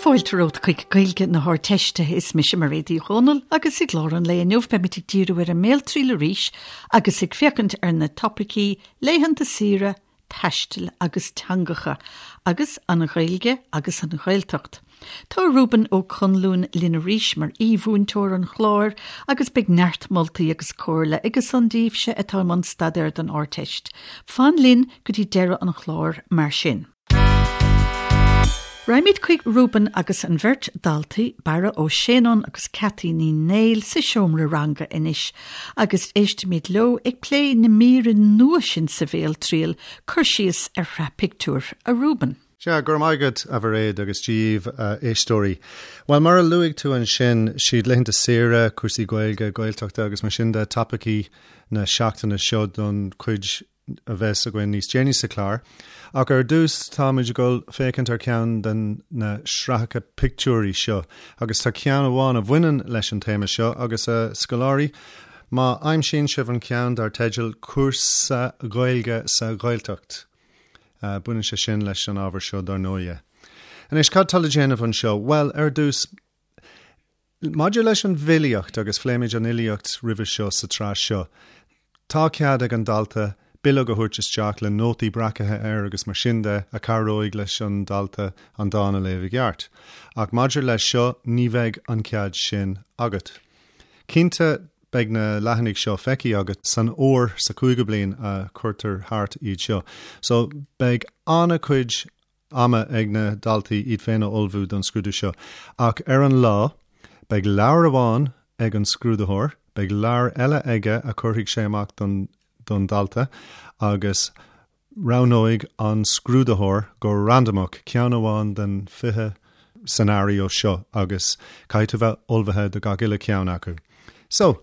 Fáilte romhat chuig Gaeilge na hArdteiste. Is mise Mairéad Uí Dhomhnaill agus i gclár an lae inniu beimid ag díriú ar an mBéaltriail arís agus ag féachaint ar na topaicí laethanta saoire, taistil agus teangacha, agus an Ghaeilge agus an Ghaeltacht. Tá Reuben Ó Conluain linn arís mar aoi-mhúinteoir an chláir agus beidh neart moltaí agus comhairle aige san daoibhse atá i mbun staidéir don Ardteist. Fan linn go dtí deireadh an chláir mar sin. Raghaimid chuig Reuben agus an bheirt daltaí, Barra Ó Séanáin agus Cathy Ní Néill sa seomra ranga anois agus éistfimid leo ag plé na míre nua sin sa bhéaltriail, cur síos ar shraith pictiúr, a Reuben. Sea, go raibh maith agat, a Mhairéad, agus Dia dhaoibh, a éisteoirí. Bhuel, mar a luaigh tú ansin, siad laethanta saoire, cúrsaí Gaeilge, Gaeltachta agus mar sin de topaicí na seachtaine seo don chuid a bheas againn níos déanaí sa chlár. Ach ar dtús táimid ag dul féachaint ar cheann de na sraitheacha pictiúirí seo agus tá ceann amháin a bhaineann leis an téama seo agus a scoláirí, má aimsíonn sibh an ceann dar teideal 'Cúrsa Gaeilge sa Ghaeltacht', baineann sé sin leis an ábhar seo dar ndóighe. Anois, cad tá le déanamh anseo? Bhuel, ar dtús, Maidir leis an bhfilíocht, agus phléimid an fhilíocht roimhe seo sa tsraith seo, tá cead ag an dalta bileog a thabhairt isteach le nótaí breacaithe air agus mar sin de a chabhróidh leis an dalta an dán a léamh i gceart. Ach maidir leis seo, ní bheidh an cead sin agat. Cinnte, beidh na leathanaigh seo feicthe agat san uair sa chúigiú bliain a chuirtear thart iad seo. So, beidh an-chuid ama ag na daltaí iad féin a ullmhú don scrúdú seo. Ach ar an lá, beidh leabhar amháin ag an scrúdaitheoir, beidh leabhar eile aige a chuirfidh sé amach don don dalta agus roghnóidh an scrúdaitheoir go randamach ceann amháin den 20 scenario seo agus caithfidh tú bheith ullmhaithe do gach uile cheann acu. So,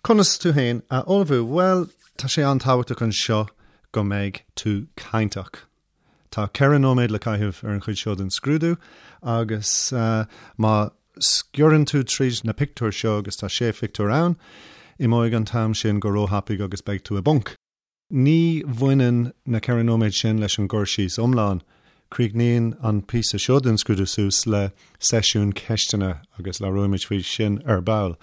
conas tú féin a ullmhú? Bhuel, tá sé an-tábhachtach anseo go mbeidh tú cainteach. Tá 4 nóiméad le caitheamh ar an chuid seo den scrúdú agus má sciorrann tú tríd na pictiúir seo, agus tá sé phictiúr ann, imeoidh an t-am sin go róthapaidh agus beidh tú i bponc. Ní bhaineann na 4 nóiméad sin leis an gcur síos iomlán. Críochnaíonn an píosa seo den scrúdú suas le seisiún ceisteanna agus labhróimid faoi sin ar ball.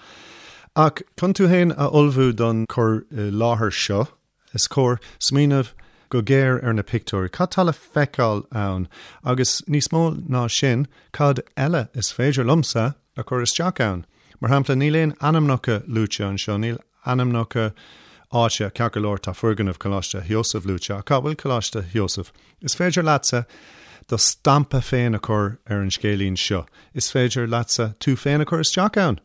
Ach chun tú féin a ullmhú don chur i láthair seo, Is cóir smaoineamh go géar ar na pictiúir. Cad tá le feiceáil ann? Agus níos mó ná sin, cad eile is féidir liomsa a chur isteach ann? Mar shampla, níl aon ainmneacha luaite anseo, níl ainmneacha áite, ceart go leor tá foirgneamh Choláiste Sheosaimh luaite, ach cá bhfuil Coláiste Sheosaimh? Is féidir leatsa do stampa féin a chur ar an scéilín seo. Is féidir leatsa tú féin a chur isteach ann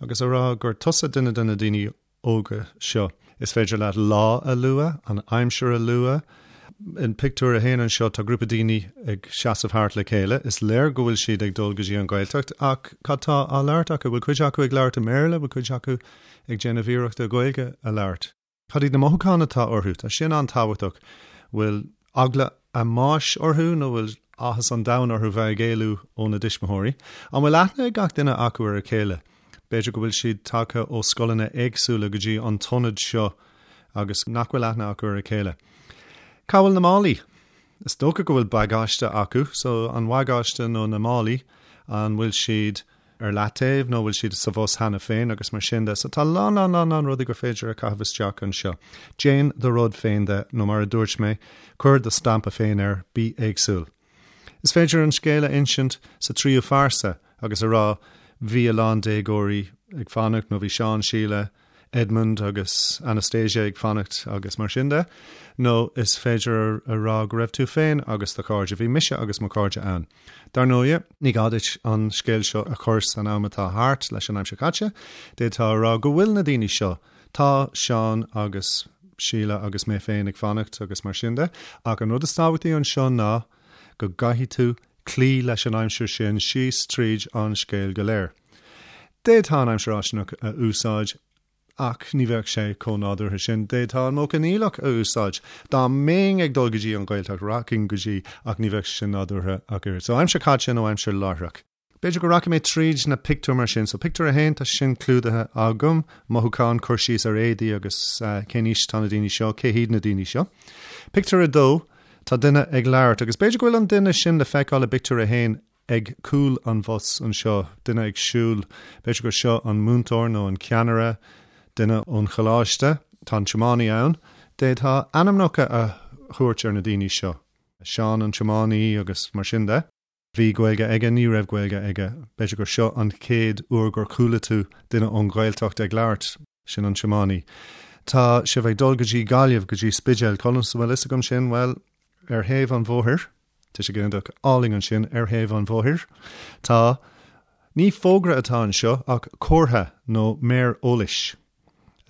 agus a rá gur tusa duine de na daoine óga seo. Is féidir leat lá a lua, an aimsir a lua. In pictiúr a haon anseo tá grúpa daoine ag seasamh thart le chéile. Is léir go bhfuil siad ag dul go dtí an Ghaeltacht ach cad tá á labhairt acu? Bhfuil cuid acu ag labhairt i mBéarla? Bhfuil cuid acu ag déanamh iarrachta Gaeilge a labhairt? Cad iad na mothúcháin atá orthu? Tá sin an-tábhachtach. Bhfuil eagla a mbáis orthu nó bhfuil áthas an domhain orthu bheith ag éalú óna dtuismitheoirí? An bhfuil aithne ag gach duine acu ar a chéile? B'fhéidir go bhfuil siad tagtha ó scoileanna éagsúla go dtí an t-ionad seo agus nach bhfuil aithne acu ar a chéile. Cá bhfuil na málaí? Is dócha go bhfuil bagáiste acu, so an bagáiste nó na málaí, an bhfuil siad ar leataobh nó bhfuil siad sa bhus cheana féin agus mar sin de. So tá lán lán lán lán rudaí gur féidir a chaitheamh isteach anseo. Déan do rud féin de nó mar a dúirt mé, cuir do stampa féin air, bí éagsúil. Is féidir an scéal a insint sa tríú phearsa agus a rá bhí a lán déagóirí ag fanacht nó bhí Seán, Síle, Edmund agus Anastasia ag fanacht agus mar sin de. Nó is féidir a rá go raibh tú féin agus do chairde, bhí mise agus mo chairde ann. Dar ndóigh, ní gá duit an scéal seo a chur san am atá thart leis an aimsir chaite, d'fhéadfá a rá go bhfuil na daoine seo, tá Seán agus Síle agus mé féin ag fanacht agus mar sin de, ach an rud is tábhachtaí anseo ná go gcaithfidh tú cloí leis an aimsir sin síos tríd an scéal go léir. D'fhéadfá an aimsir fháistineach a úsáid ach ní bheadh sé chomh nádúrtha sin. D'fhéadfá an modh coinníollach a úsáid. Dá mbeinn ag dul go dtí an Ghaeltacht, rachainn go dtí ach ní bheadh sé sin nádúrtha ach oiread. So aimsir chaite nó aimsir láithreach. B'fhéidir go rachaidh mé tríd na pictiúir mar sin. So pictiúr a haon, tá sin clúdaithe agam. Mothúcháin, cur síos ar éadaí agus cén aois atá na daoine seo, cé hiad na daoine seo. Pictiúr a dó, tá duine ag labhairt agus b'fhéidir go bhfuil an duine sin le feiceáil i bpictiúr a haon. ag cúl an bhus anseo, duine ag siúl, b'fhéidir gur seo an múinteoir nó an ceannaire, duine ón choláiste, tá an tiománaí ann, d'fhéadfá ainmneacha a thabhairt ar na daoine seo, Seán an tiománaí agus mar sin de. Bhí Gaeilge aige, ní raibh Gaeilge aige, b'fhéidir gur seo an chéad uair gur chuala tú duine ón Ghaeltacht ag labhairt, sin an tiománaí. Tá sibh ag dul go dtí Gaillimh, go dtí Spidéal, conas a bhfuil fhios agam sin? Bhuel, ar thaobh an bhóthair, tá sé go hiontach álainn ansin, ar thaobh an bhóthair, tá, ní fógra atá anseo ach comhartha nó méar eolais.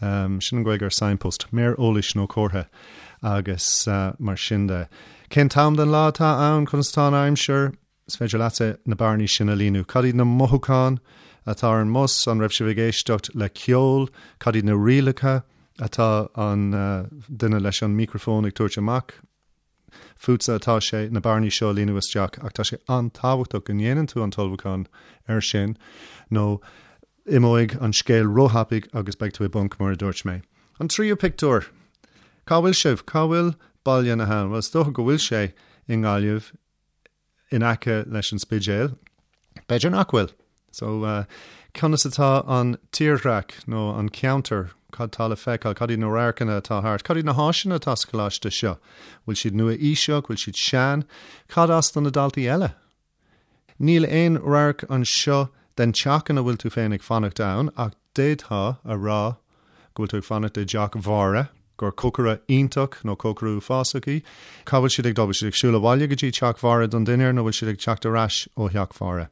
Sin an Ghaeilge ar signpost, méar eolais nó comhartha agus mar sin de. Cén t-am den lá atá ann? Conas atá an aimsir? Is féidir leatsa na bearnaí sin a líonadh. Cad iad na mothúcháin atá ar an mbus? An raibh sibh ag éisteacht le ceol? Cad iad na rialacha atá an duine leis an micreafón ag tabhairt amach? Fútsa atá sé na bearnaí seo a líonadh isteach ach tá sé an-tábhachtach go ndéanann tú an t-ullmhúchán air sin nó imeoidh an scéal róthapaidh agus beidh tú i bponc mar a dúirt mé. An tríú pictiúr! Cá bhfuil sibh? Cá bhfuil Baile na hAbhann? Bhuel is dócha go bhfuil sé i nGaillimh. in aice leis an Spidéal. B'fhéidir nach bhfuil. So, conas atá an tírdhreach nó an ceantar? Cad tá le feiceáil? Cad iad na radharcanna atá thart? Cad iad na háiseanna atá sa choláiste seo? Bhfuil siad nua-aoiseach? Bhfuil siad sean? Cad as do na daltaí eile? Níl aon radharc anseo den teach ina bhfuil tú féin ag fanacht ann ach d'fhéadfá a rá go bhfuil tú ag fanacht i dteach Mháire, gur cócaire iontach nó cócaire uafásach í. Cá bhfuil siad ag dul? Bhfuil siad ag siúl abhaile go dtí teach Mháire don dinnéar nó bhfuil siad ag teacht ar ais ó theach Mháire?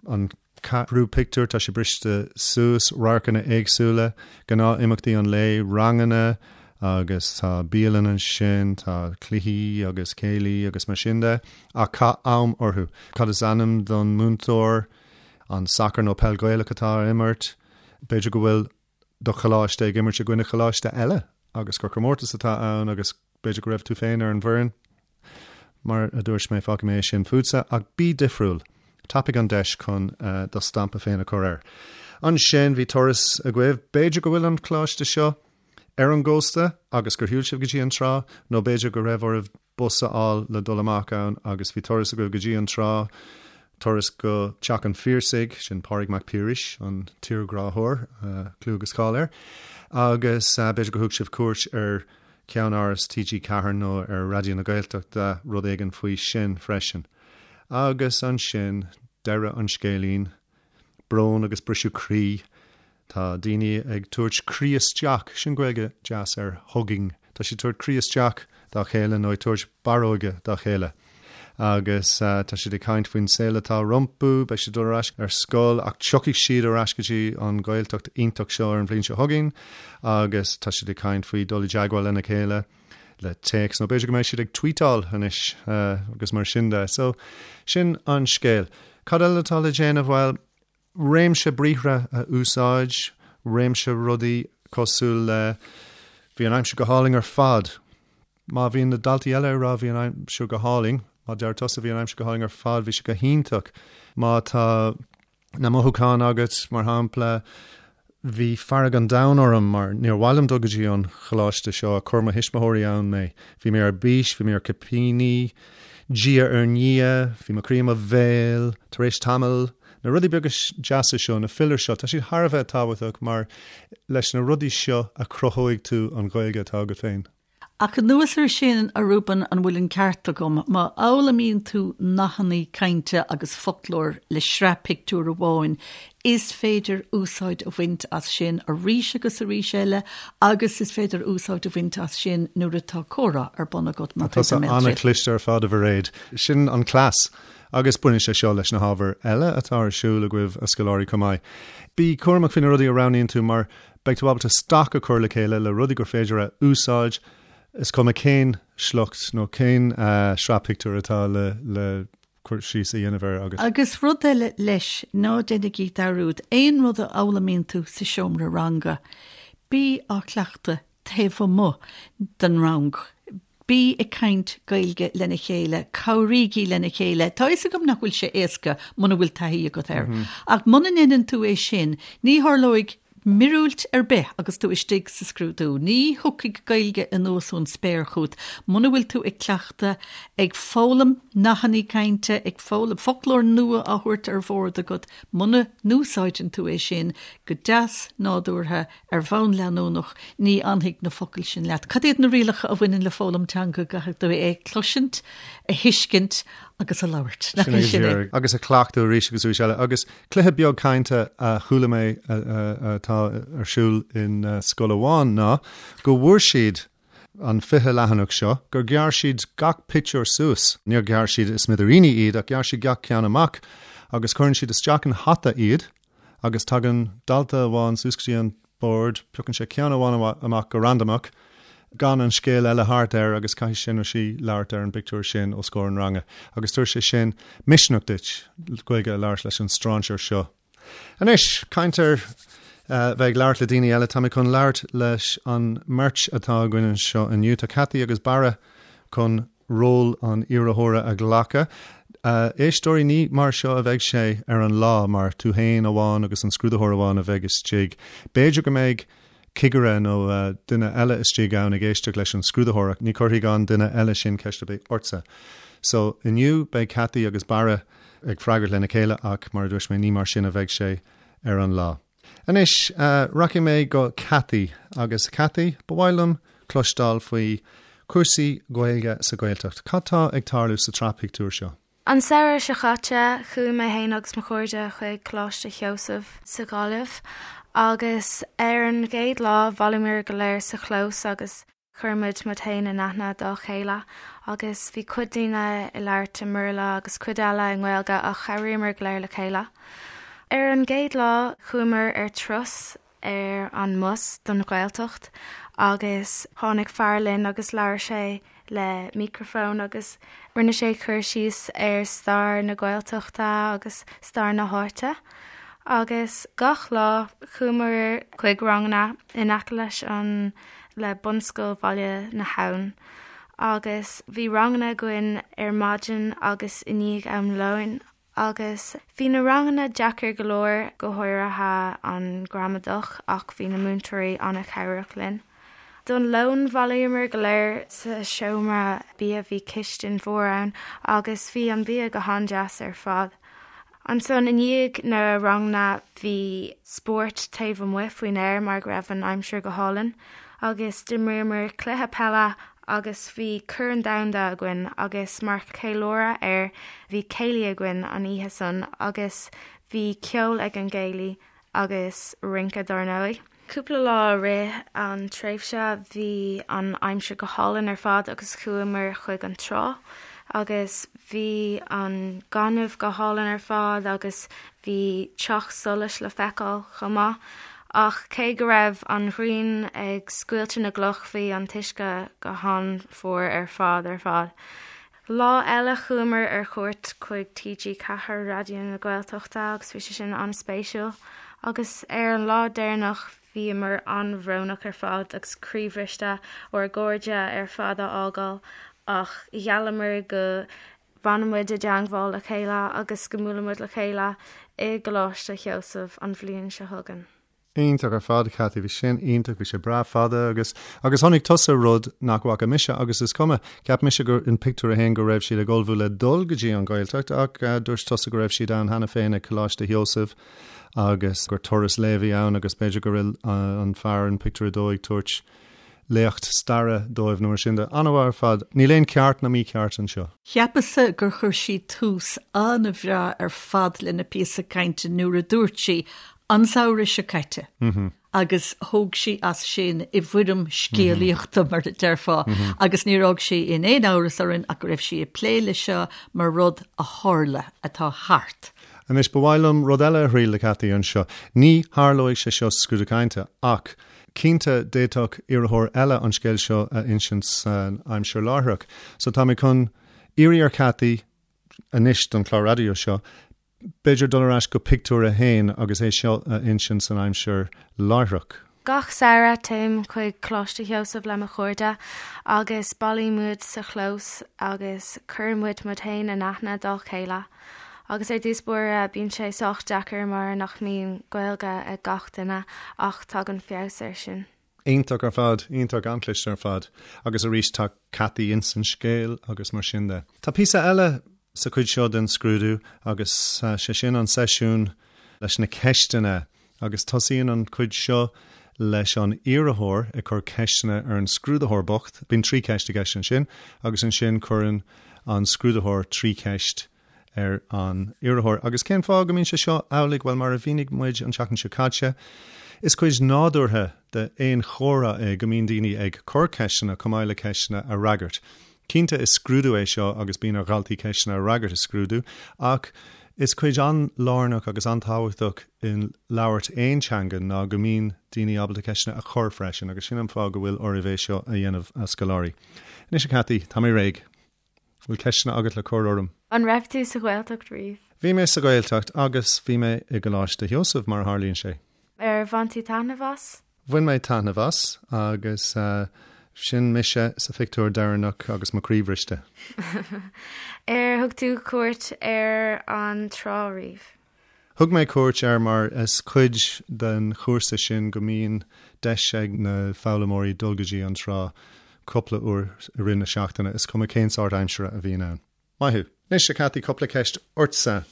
An ceathrú pictiúr, tá sé briste suas, radharcanna éagsúla, gnáth-imeachtaí an lae, ranganna agus tá bialann ansin, tá cluichí agus céilí agus mar sin de, ach caith am orthu. Cad is ainm don múinteoir? An sacar nó peil Ghaelach atá á imirt? B'fhéidir go bhfuil do choláiste ag imirt i gcoinne choláiste eile agus gur comórtas atá ann agus b'fhéidir go raibh tú féin ar an bhfoireann. Mar a dúirt mé, fágfaidh mé é sin fútsa, ach bí difriúil. Tapaigh an deis chun do stampa féin a chur air. Ansin, bhí turas agaibh. B'fhéidir go bhfuil an coláiste seo ar an gcósta agus gur shiúil sibh go dtí an trá, nó b'fhéidir go raibh oraibh bus a fháil le dul amach ann agus bhí turas agaibh go dtí an trá, turas go Teach an Phiarsaigh, sin Pádraig Mac Piarais, an tírghráthóir, clú agus cáil air, agus b'fhéidir gur thug sibh cuairt ar cheannáras TG4 nó ar Raidió na Gaeltachta, rud éigin faoi sin freisin. Agus ansin, deireadh an scéilín, brón agus briseadh croí. Tá daoine ag tabhairt croí isteach, sin Gaeilge deas ar hugging, tá siad ag tabhairt croí isteach dá chéile nó ag tabhairt barróige dá chéile. Agus tá siad ag caint faoin saol atá rompu, beidh siad ag dul ar ais ar scoil ach tiocfaidh siad ar ais go dtí an Ghaeltacht iontach seo ar an bhliain seo chugainn agus tá siad ag caint faoi dul i dteagmháil lena chéile le téacs nó b'fhéidir go mbeidh siad ag tweetáil anois agus mar sin de. So sin an scéal. Cad eile atá le déanamh? Bhuel, réimse briathra a úsáid, réimse rudaí cosúil le 'Bhí an aimsir go hálainn ar fad'. Má bhíonn na daltaí eile ag rá 'Bhí an aimsir go hálainn', má deir tusa 'Bhí an aimsir go hálainn ar fad', bhí sé go hiontach. Má tá na mothúcháin agat, mar shampla, Bhí fearg an domhain orm mar níor mhaith liom dul go dtí an choláiste seo, chuir mo thuismitheoirí ann mé. Bhí mé ar bís, bhí mé ar cipíní, diaidh ar ndiaidh, bhí mo chroí i mo bhéal, tar éis tamaill. Na rudaí beaga deasa seo, na fillers seo, tá siad thar a bheith tábhachtach mar leis na rudaí seo a chruthóidh tú an Ghaeilge atá agat féin. Ach anuas air sin, a Reuben, an bhfuil an ceart agam, má fhoghlaimíonn tú nathanna cainte agus foclóir le sraith pictiúr amháin, is féidir úsáid a bhaint as sin arís agus arís eile agus is féidir úsáid a bhaint as sin nuair atá comhrá ar bun agat mar chuid den mBéaltriail. Tá tusa an-chliste ar fad, a Mhairéad. Sin an cleas. Agus baineann sé seo leis na hábhair eile atá ar siúl agaibh, a scoláirí, chomh maith. Bí cúramach faoi na rudaí a roghnaíonn tú mar Beidh tú ábalta stoc a chur le chéile le rudaí gur féidir a úsáid, is cuma cén sliocht nó cén sraith pictiúr atá le cur síos a dhéanamh air agat. Agus rud eile leis, ná déanaigí dearúd, aon rud a fhoghlaimíonn tú sa seomra ranga, bí á chleachtadh taobh amuigh den rang. Bí ag caint Gaeilge lena chéile, cabhraígí lena chéile. Tá a fhios agam nach bhfuil sé éasca muna bhfuil taithí agat air. Ach muna ndéanann tú é sin, ní tharlóidh. Míorúilt ar bith agus tú istigh sa scrúdú. Ní thiocfaidh Gaeilge anuas ón spéir chugat muna bhfuil tú ag cleachtadh, ag foghlaim nathanna cainte, ag foghlaim foclóir nua á thabhairt ar bhord agat. Muna n-úsáideann tú é sin go deas nádúrtha ar bhonn leanúnach, ní fhanfaidh na focail sin leat. Cad iad na rialacha a bhaineann le foghlaim teanga? Caithfidh tú é a chloisint, a thuiscint agus a labhairt. Nach é sin é? Agus a chleachtadh arís agus arís eile. Agus Cluiche beag cainte a chuala mé atá ar siúl in scoil amháin ná go bhfuair siad an 20 leathanach seo, gur ghearr siad gach pictiúr suas, níor ghearr siad i smidiríní iad ach ghearr siad gach ceann amach agus cuireann siad isteach in hata iad agus tagann dalta amháin suas go dtí an bord, piocann sé ceann amháin amach go randamach, gan an scéal eile thart air agus caithfidh sé nó sí labhairt ar an bpictiúr sin os comhair an ranga agus tabharfaidh sé sin misneach duit Gaeilge a labhairt leis an stráinséir seo. Anois, caint ar bheith ag labhairt le daoine eile, tá mé chun labhairt leis an mbeirt atá againn anseo inniu. Tá Cathy agus Barra chun ról an iarrthóra a ghlacadh. Éisteoirí, ní mar seo a bheidh sé ar an lá, mar tú féin amháin agus an scrúdaitheoir amháin a bheidh istigh. B'fhéidir go mbeidh cigire nó duine eile istigh ann ag éisteacht leis an scrúdaitheoir ach ní chuirfidh an duine eile sin ceist ar bith ortsa. So, inniu beidh Cathy agus Barra ag freagairt lena chéile ach, mar a dúirt mé, ní mar sin a bheidh sé ar an lá. Anois, rachaidh mé go Cathy, agus Cathy, ba mhaith liom cloisteáil faoi chúrsaí Gaeilge sa Ghaeltacht. Cad tá ag tarlú sa tsraith pictiúr seo? An samhradh seo caite, chuaigh mé féin agus mo chairde chuig Coláiste Sheosaimh sa Ghaillimh agus ar an gcéad lá bhailíomar go léir sa chlós agus Chuir muid muid féin in aithne dá chéile agus bhí cuid daoine ag labhairt i mBéarla agus cuid eile i nGaeilge ach chabhraíomar go léir le chéile. Ar an gcéad lá chuamar ar turas ar an mbus don Ghaeltacht agus tháinig fear linn agus labhair sé le micreafón agus rinne sé cur síos ar stair na Gaeltachta agus stair na háite. Agus gach lá chuamar chuig ranganna in aice leis an le Bunscoil Bhaile na hAbhann agus bhí ranganna againn ar maidin agus i ndiaidh am lóin agus bhí na ranganna deacair go leor, go háirithe an gramadach ach bhí na múinteoirí an-chabhrach linn. Don lón bhailíomar go léir sa seomra bia, bhí cistin mhór ann agus bhí an bia go han-deas ar fad. Ansan i ndiaidh na ranganna bhí spórt taobh amuigh faoin aer mar go raibh an aimsir go hálainn agus d'imríomar cluiche peile agus bhí Corn Domhanda againn agus mar cheiliúradh air bhí céilí againn an oíche san agus bhí ceol ag an gcéilí agus rince dár ndóigh. Cúpla lá i rith an tréimhse bhí an aimsir go hálainn ar fad agus chuamar chuig an trá agus bhí an gaineamh go hálainn ar fad agus bhí teach solais le feiceáil chomh maith. Ach cé go raibh an ghrian ag scoilteadh na gcloch bhí an t-uisce go han-fhuar ar fad ar fad. Lá eile chuamar ar chuairt chuig TG4, Raidió na Gaeltachta agus bhí sé sin an-spéisiúil. Agus ar an lá deireanach bhíomar an-bhrónach ar fad agus croíbhriste ár gcairde ar fad a fhágáil ach gheallamar go bhfanadh muid i dteangmháil le chéile agus go mbuailfidh muid le chéile i gColáiste Sheosaimh an bhliain seo chugainn. Iontach ar fad, Cathy. Bhí sin iontach. Bhí sé breá fada agus, agus chonaic tusa rud nach bhfaca mise agus is cuma. Cheap mise gur in pictiúr a haon go raibh siad ag ullmhú le dul go dtí an Ghaeltacht ach dúirt tusa go raibh siad ann cheana féin ag Coláiste Sheosaimh agus gur turas lae a bhí ann agus b'fhéidir go raibh an fear in pictiúr a dó ag tabhairt léacht staire dóibh nó mar sin de. An-mhaith ar fad. Níl aon ceart ná mícheart anseo. Cheapas-sa gur chuir sí tús an-bhreá ar fad lena píosa cainte nuair a dúirt sí An samhradh seo caite agus thóg sí as sin i bhfoirm scéalaíochta, mar a déarfá, agus níor fhág sí in aon amhras orainn ach go raibh sí ag plé le seo mar rud a tharla, atá thart. Anois, ba mhaith liom rud eile a thriail le Cathy anseo. Ní tharlóidh sé seo sa scrúdú cainte, ach cinnte d'fhéadfadh iarrthóir eile an scéal seo a insint san aimsir láithreach. So tá mé chun iarraidh ar Cathy anois don chlár raidió seo, B'fhéidir dul ar ais go pictiúr a haon agus é seo a insint san aimsir láithreach. Gach samhradh téim chuig Coláiste Sheosaimh le mo chairde agus bailíonn muid sa chlós agus cuireann muid muid féin in aithne dá chéile. Agus ar dtús báire bíonn sé sách deacair mar nach mbíonn Gaeilge ag gach duine ach tagann feabhas air sin. Iontach ar fad, iontach, an-chliste ar fad. Agus arís tá Cathy ins an scéal agus mar sin de. Tá píosa eile sa chuid seo den scrúdú agus sé sin an seisiún leis na ceisteanna agus tosaíonn an chuid seo leis an iarrthóir ag cur ceisteanna ar an scrúdaitheoir bocht. Bíonn 3 cheist i gceist ansin agus ansin cuireann an scrúdaitheoir 3 cheist ar an iarrthóir. Agus cén fáth go mbíonn sé seo amhlaidh? Bhuel, mar a mhínigh muid an tseachtain seo caite, is cuid nádúrtha d'aon chomhrá é go mbíonn daoine ag cur ceisteanna chomh maith le ceisteanna a fhreagairt. Cinnte, is scrúdú é seo agus bíonn ar dhaltaí ceisteanna a fhreagairt i scrúdú, ach is cuid an-lárnach agus an-tábhachtach i labhairt aon teanga ná go mbíonn daoine ábalta ceisteanna a chur freisin, agus sin an fáth go bhfuil oraibh é seo a dhéanamh, a scoláirí. Anois, a Cathy, tá mé réidh. Bhfuil ceisteanna agat le cur orm? An raibh tú sa Ghaeltacht riamh? Bhí mé sa Ghaeltacht agus bhí mé i gColáiste Sheosaimh, mar a tharlaíonn sé. Ar bhain tú taitneamh as? Bhain mé taitneamh as agus sin mise sa phictiúr deireanach agus mo chroí bhriste. Ar thug tú cuairt ar an trá riamh? Thug mé cuairt air mar is cuid den chúrsa sin go mbíonn deis ag na foghlaimeoirí dul go dtí an trá cúpla uair i rith na seachtaine, is cuma cén sórt aimsire a bhíonn ann. Maith thú. Anois, a Cathy, cúpla ceist ortsa.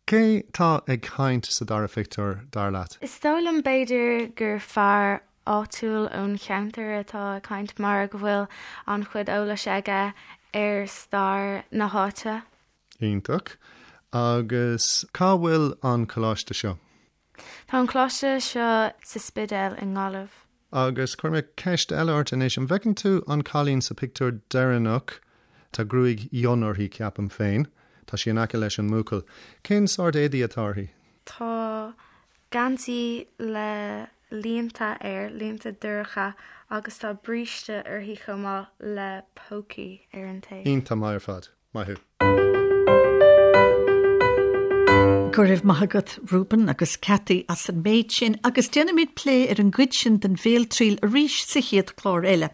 Cé tá ag caint sa dara phictiúr, dar leat? Is dóigh liom b'fhéidir gur fear áitiúil ón cheantar atá ag caint mar go bhfuil an-chuid eolais aige ar stair na háite. Iontach. Agus cá bhfuil an coláiste seo? Tá an coláiste seo sa Spidéal i nGaillimh. Agus cuirfidh mé ceist eile ort anois. An bhfeiceann tú an cailín sa phictiúr deireanach? Tá gruaig fhionn uirthi, ceapaim féin. Tá sí in aice leis an mbuachaill. Cén sórt éadaí atá uirthi? Tá geansaí le línte air, línte dorcha, agus tá bríste uirthi chomh maith le pócaí ar an taobh. Iontach maith ar fad. Maith thú. Go raibh maith agat Reuben agus Cathy as an méid sin agus déanfaimid plé ar an gcuid sin den bhéaltriail arís sa chéad chlár eile.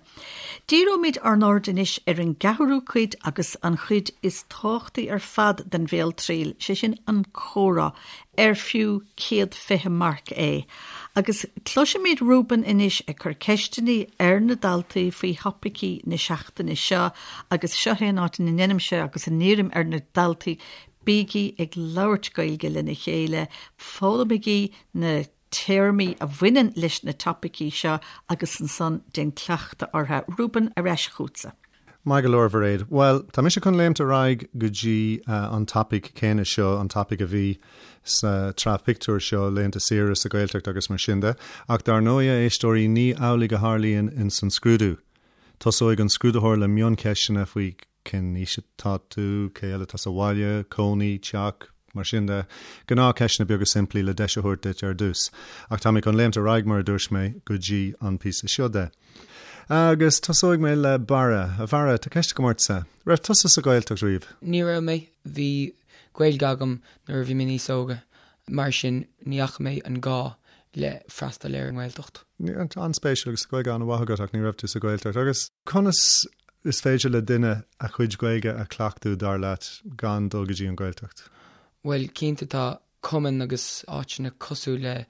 Díreoimid ár n-aird anois ar an gceathrú cuid agus an chuid is tábhachtaí ar fad den bhéaltriail, sé sin an comhrá, ar fiú 120 marc é. Agus cloisfimid Reuben anois ag cur ceisteanna ar na daltaí faoi thopaicí na seachtaine seo agus seo é an áit ina ndeinimse agus a n-iarraim ar na daltaí, bígí ag labhairt Gaeilge lena chéile, foghlaimigí na téarmaí a bhaineann leis na topaicí seo agus ansan déan cleachtadh orthu. Reuben, ar ais chugatsa. Maith go leor, Mhairéad. Bhuel, tá mise chun léimt ar aghaidh go dtí an topaic céanna seo, an topaic a bhí sa tsraith pictiúr seo, laethanta saoire sa Ghaeltacht agus mar sin de. Ach dar ndóigh, a éisteoirí, ní amhlaidh a tharlaíonn ins an scrúdú. Tosóidh an scrúdaitheoir le mioncheisteanna faoi cén aois atá tú, cé eile atá sa bhaile, cónaí, teach, mar sin de. Gnáthcheisteanna beaga simplí le deis a thabhairt duit ar dtús. Ach tá mé chun léimt ar aghaidh, mar a dúirt mé, go dtí an píosa seo de. Agus tosóidh mé le Barra. A Bharra, tá ceist agam ortsa. Raibh tusa sa Ghaeltacht riamh? Ní raibh mé. Bhí Gaeilge agam nuair a bhí mé níos óga, mar sin ní fhaca mé an gá le freastal ar an nGaeltacht. An-spéisiúil, agus Gaeilge an-mhaith agat ach ní raibh tú sa Ghaeltacht. Agus conas is féidir le duine a chuid Gaeilge a chleachtadh, dar leat, gan dul go dtí an Ghaeltacht? Bhuel, cinnte tá cumainn agus áiteanna cosúil le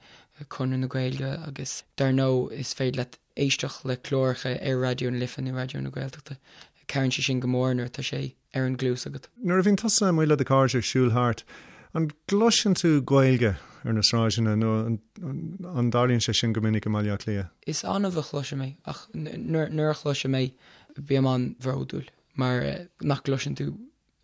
Conradh na Gaeilge agus dar ndóigh is féidir leat éisteacht le cláracha ar Raidió na Life nó Raidió na Gaeltachta. Cabhraíonn sé sin go mór nuair atá sé ar an gcluas agat. Nuair a bhíonn tusa amuigh le do chairde ag siúl thart, an gcloiseann tú Gaeilge ar na sráideanna nó an dtarlaíonn sé sin go minic i mBaile Átha Cliath? Is annamh a chloisim é ach nuair a chloisim é bím an-bhródúil mar nach gcloiseann tú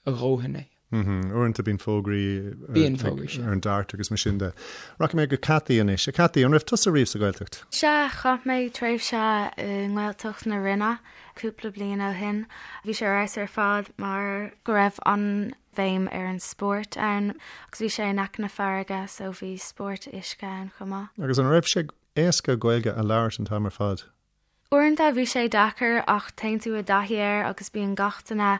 a dhóthain é. Uaireanta bíonn fógraí Bíonn fógraí, sea. ar an DART agus mar sin de. Rachaidh mé go Cathy anois. A Cathy, an raibh tusa riamh sa Ghaeltacht? Sea, chaith mé tréimhse i nGaeltacht na Rinne cúpla bliain ó shin. Bhí sé ar fheabhas ar fad mar go raibh an-bhéim ar an spórt ann agus bhí sé in aice na farraige so bhí spórt uisce ann chomh maith. Agus an raibh sé éasca Gaeilge a labhairt an t-am ar fad? Uaireanta bhí sé deacair ach téann tú i dtaithí air agus bíonn gach duine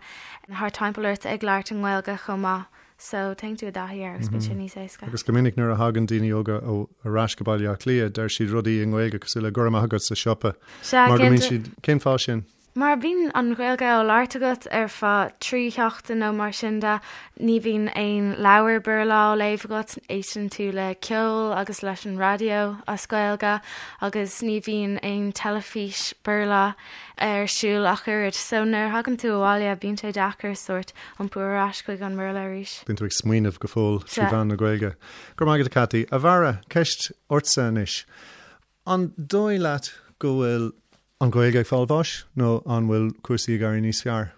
thart timpeall ort ag labhairt i nGaeilge chomh maith so téann tú i dtaithí air agus bíonn sé níos éasca. Agus go minic nuair a thagann daoine óga ar ais go Baile Átha Cliath deir siad rudaí i nGaeilge cosúil le go raibh maith agat sa siopa Sea, mar go mbíonn siad, cén fáth sin? Mar bíonn an Ghaeilge á labhairt agat ar feadh 3 sheachtain nó mar sin de, ní bhíonn aon leabhar Béarla á léamh agat, éisteann tú le ceol agus leis an raidió as Gaeilge agus ní bhíonn aon teilifís Béarla ar siúl ach oiread. So nuair a thagann tú abhaile bíonn sé deacair sórt iompú ar ais chuig an mBéarla arís. Bíonn tú ag smaoineamh go fóill trí mheán na Gaeilge. Go raibh maith agat a Cathy. A Bharra, ceist ortsa anois. An dóigh leat go bhfuil an Ghaeilge ag fáil bháis nó an bhfuil cúrsaí ag éirí níos fearr?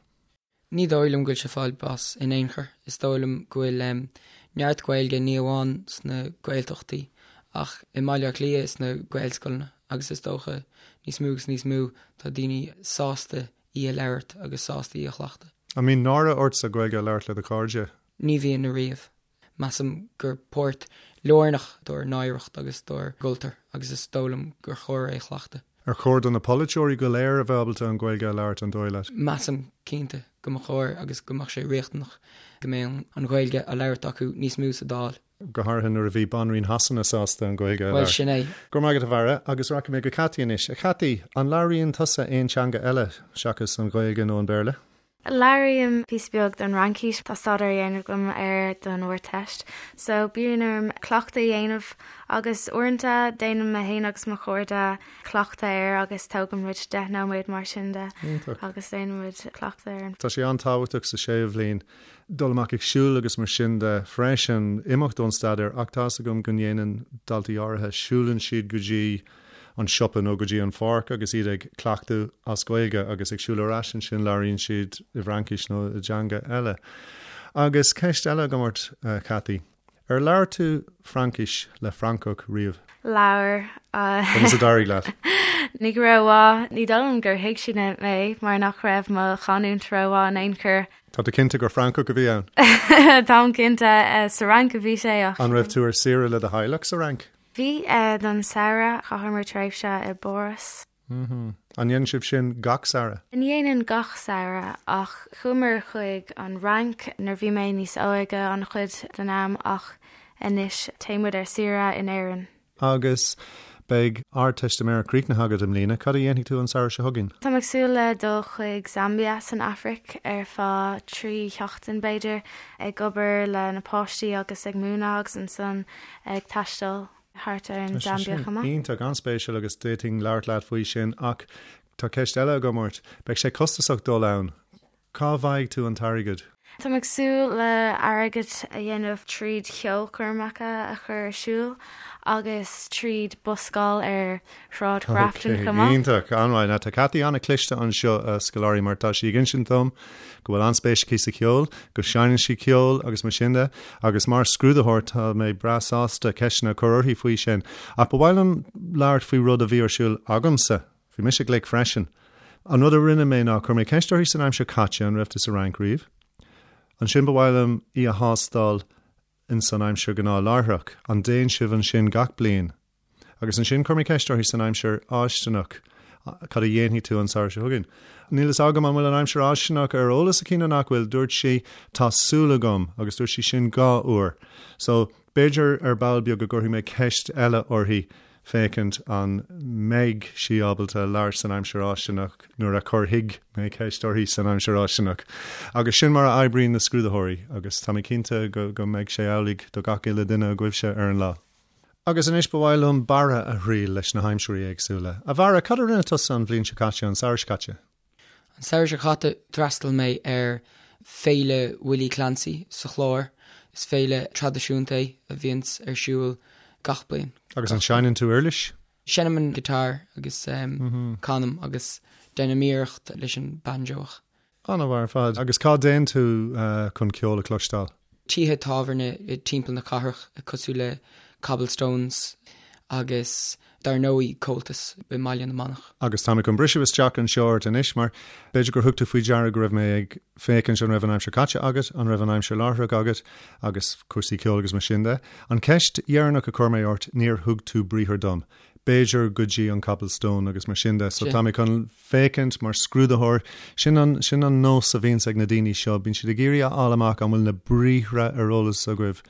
Ní dóigh liom go bhfuil sé ag fáil bás in aon chor. Is dóigh liom go bhfuil neart Gaeilge ní amháin sna Gaeltachtaí ach i mBaile Átha Cliath sna Gaelscoileanna agus is dócha níos mó agus níos mó tá daoine sásta í a labhairt agus sásta í a chleachtadh. An mbíonn náire ortsa Gaeilge a labhairt le do chairde? Ní bhíonn ariamh. Measaim gur páirt lárnach dár n-oidhreacht agus dár gcultúr agus is dóigh liom gur chóir é a chleachtadh. Ar chóir do na polaiteoirí go léir a bheith ábalta an Ghaeilge a labhairt, an dóigh leat? Measaim, cinnte, go mba chóir agus go mbeadh sé riachtanach go mbeadh an Ghaeilge á labhairt acu níos mó sa Dáil. Go háirithe nuair a bhí Banríon Shasana sásta an Ghaeilge a labhairt. Bhuel, sin é. Go raibh maith agat, a Bharra, agus rachaidh mé go Cathy anois. A Chathy, an labhraíonn tusa aon teanga eile seachas an Ghaeilge nó an Béarla? Labhraím píosa beag den Fhraincis, tá staidéar á dhéanamh agam air don Ardteist, so bíonn orm cleachtadh a dhéanamh agus uaireanta déanaim mé féin agus mo chairde cleachtadh air agus tógann muid 10 nóiméad mar sin de agus déanann muid cleachtadh air. Tá sé an-tábhachtach sa séú bhliain dul amach ag siúl agus mar sin de freisin, imeacht ón staidéar ach tá's agam go ndéanann daltaí áirithe, siúlann siad go dtí an siopa nó go dtí an pháirc agus iad ag cleachtadh as Gaeilge agus ag siúl ar ais ansin labhraíonn siad i bhFraincis nó i dteanga eile. Agus ceist eile agam ort, a Chathy. Ar labhair tú Fraincis le Francach riamh? Labhair. Conas a d'éirigh leat? Ní go rómhaith. Ní dóigh liom gur thuig siad mé mar nach raibh mo chanúint rómhaith in aon chor. Tá tú cinnte gur Francach a bhí ann? Táim cinnte. Sa Fhrainc a bhí sé ach. An raibh tú ar saoire le do theaghlach sa Fhrainc? Bhí, don samhradh, chaitheamar tréimhse i bPáras. An ndéanann sibh sin gach samhradh? Ní dhéanann gach samhradh, ach chuamar chuig an Fhrainc nuair bhí mé níos óige an-chuid den am ach anois téann muid ar saoire in Éirinn. Agus beidh Ardteistiméireacht críochnaithe agat i mbliana, cad a dhéanfaidh tú an samhradh seo chugainn? Táim ag súil le dul chuig Zambia san Afraic ar feadh 3 sheachtain b'fhéidir, ag obair le na páistí agus ag múineadh agus ansan ag taisteal thart ar an Zambia chomh maith. Iontach, an-spéisiúil agus d'fhéadfainn labhairt leat faoi sin ach tá ceist eile agam ort. Beidh sé costasach dul ann. Cá bhfaighidh tú an t-airgead? Táim ag súil le airgead a dhéanamh tríd cheolchoirmeacha a chur ar siúl agus tríd buscáil ar Shráid Ghrafton chomh maith. Iontach, an-mhaith. Now tá Cathy an-chliste anseo, a scoláirí, mar tá sí ag insint dom go bhfuil an-spéis aici sa cheol, go seinneann sí ceol agus mar sin de, agus mar scrúdaitheoir tá mé breá sásta ceisteanna a chur uirthi faoi sin. Ach ba mhaith liom labhairt faoi rud a bhí ar siúl agamsa. Bhí mise glic freisin. An rud a rinne mé ná chuir mé ceist uirthi san aimsir caite, an raibh tú sa Fhrainc riamh? Ansin ba mhaith liom í a thástáil in san aimsir ghnáthláithreach, an dtéann sibh ansin gach bliain? Agus ansin chuir mé ceist uirthi san aimsir fháistineach, cad a dhéanfaidh tú an samhradh seo chugainn? Níl fhios agam an bhfuil an aimsir fháistineach ar eolas aici nó nach bhfuil, dúirt sí tá súil agam agus dúirt sí sin 2 uair. So, b'fhéidir ar ball beag go gcuirfidh mé ceist eile uirthi féachaint an mbeidh sí ábalta labhairt san aimsir fháistineach nuair a chuirfidh mé ceist uirthi san aimsir fháistineach. Agus sin mar a oibríonn na scrúdaitheoirí agus tá mé cinnte go go mbeidh sé amhlaidh do gach uile duine agaibhse ar an lá. Agus anois ba mhaith liom Barra a thriail leis na haimsirí éagsúla. A Bharra, cad a rinne tusa an bhliain seo caite, an samhradh seo caite? An samhradh seo caite d'fhreastail mé ar Féile Willie Clancy sa Chlár. Is féile traidisiúnta é a bhíonns ar siúl gach bliain. Agus an seinneann tú uirlis? Seinnim an guitar agus canaim agus déanaim iarracht leis an banjo ach. An-mhaith ar fad. Agus cá dtéann tú chun ceol a chloisteáil? Tithe tábhairne timpeall na cathrach cosúil le Cobblestones agus dar ndóigh Comhaltas i mBaile na Manach. Agus tá mé chun briseadh isteach anseo ort anois mar b'fhéidir gur thug tú faoi deara go raibh mé ag féachaint an raibh an aimsir caite agat, an raibh an aimsir láithreach agat agus cúrsaí ceoil agus mar sin de. An cheist dheireanach a chuir mé ort, níor thug tú briathar dom. B'fhéidir go dtí an Cobblestone agus mar sin de. So tá mé chun féachaint mar scrúdaitheoir. Sin an, sin an nós a bhíonns ag na daoine seo, bíonn siad ag iarraidh a fháil amach an bhfuil na briathra ar eolas agaibh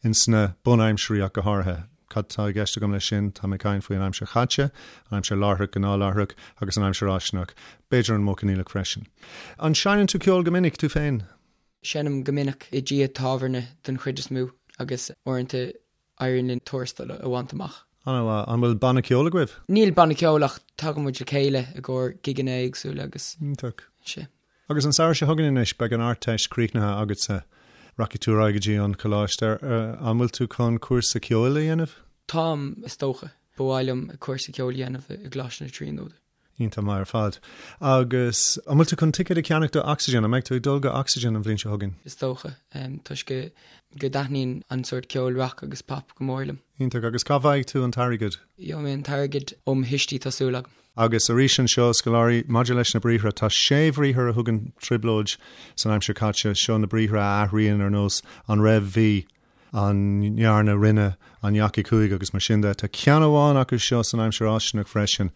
ins na bunaimsirí ach go háirithe. Cad tá i gceist agam leis sin? Tá mé ag caint faoi an aimsir chaite, an aimsir láithreach, gnáthláithreach, agus an aimsir fháistineach. B'fhéidir an modh coinníollach freisin. An seinneann tú ceol go minic, tú féin? Seinnim go minic i dtithe tábhairne den chuid is mó agus uaireanta éiríonn linn tuarastal a bhaint amach. An-mhaith. An bhfuil banna ceoil agaibh? Níl banna ceoil ach tagann muid le chéile i gcomhair gigeanna éagsúla agus. Iontach. Sea. Agus an samhradh seo chugainn anois, beidh an Ardteist críochnaithe agatsa. Rachaidh tú ar aghaidh go dtí an coláiste. An bhfuil tú chun cúrsa ceoil a dhéanamh? Táim, is dócha. Ba mhaith liom cúrsa ceoil a dhéanamh i gColáiste na Tríonóide. Iontach maith ar fad. Agus an bhfuil tú chun ticéad a cheannach do Oxygen? An mbeidh tú ag dul go Oxygen an bhliain seo chugainn? Is dócha, toisc go go dtaitníonn an sórt ceoil rock agus pop go mór liom. Iontach. Agus cá bhfaighidh tú an t-airgead? Gheobhaidh mé an t-airgead ó mo thuistí, tá súil agam. Agus arís anseo, scoláirí, maidir leis na briathra, tá sé bhriathar a thugann trioblóid san aimsir chaite. Seo na briathra a athraíonn ar nós an raibh, bhí, an ndearna, rinne, an ndeachaigh, chuaigh agus mar sin de. Tá ceann amháin acu seo san aimsir fháistineach freisin,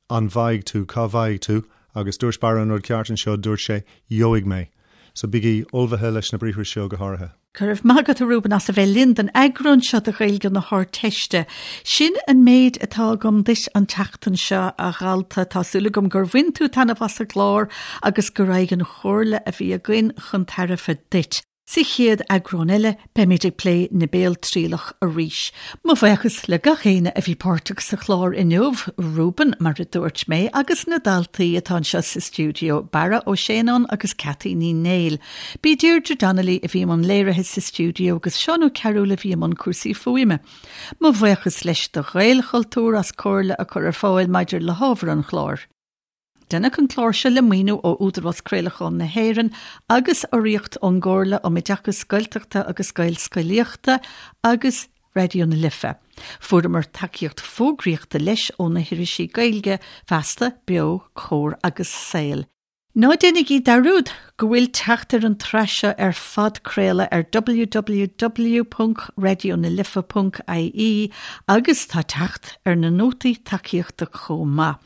an bhfaighidh tú, cá bhfaighidh tú? Agus dúirt Barra an rud ceart anseo, dúirt sé gheobhaidh mé. So bígí ullmhaithe leis na briathra seo go háirithe. Go raibh maith agat a Reuben as a bheith linn don eagrán seo de Ghaeilge na hArdteiste. Sin an méid atá agam duit an tseachtain seo, a dhalta. Tá súil agam gur bhain tú taitneamh as an gclár agus go raghadh an chomhairle a bhí againn chun tairbhe duit. Sa chéad eagrán eile, beimid ag plé na béaltrialach arís. Mo bhuíochas le gach éinne a bhí páirteach sa chlár inniu, Reuben, mar a dúirt mé, agus na daltaí atá anseo sa stiúideo, Barra Ó Séanáin agus Cathy Ní Néill. B'í Deirdre Donnelly a bhí i mbun léirithe sa stiúideo agus Seán Ó Cearúil a bhí i mbun cúrsaí fuaime. Mo bhuíochas leis do Ghaelchultúr as comhairle a chur ar fáil maidir le hábhar an chláir. Deineadh an clár seo le maoiniú ó Údarás Craolacháin na hÉireann agus urraíocht ón gComhairle um Oideachas Gaeltachta agus Gaelscolaíochta agus Raidió na Life. Fuaireamar tacaíocht fógraíochta leis ó na hirisí Gaeilge, Feasta, Beo, Comhar agus Saol. Ná déanaigí dearúd go bhfuil teacht ar an tsraith seo ar phodchraoladh ar www.raidionalife.ie agus tá teacht ar na nótaí tacaíochta chomh maith.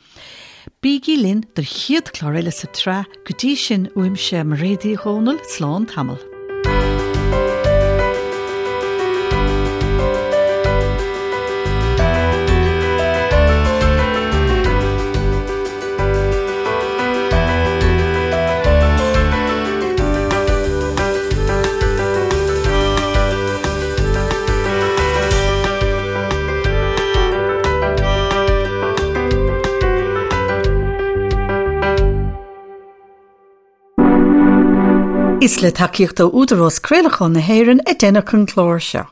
Bígí linn don chéad chlár eile sa tsraith, go dtí sin uaimse Mairéad Uí Dhomhnaill, slán tamall. Is le tacaíocht ó Údarás Craolacháin na hÉireann a deineadh an clár seo.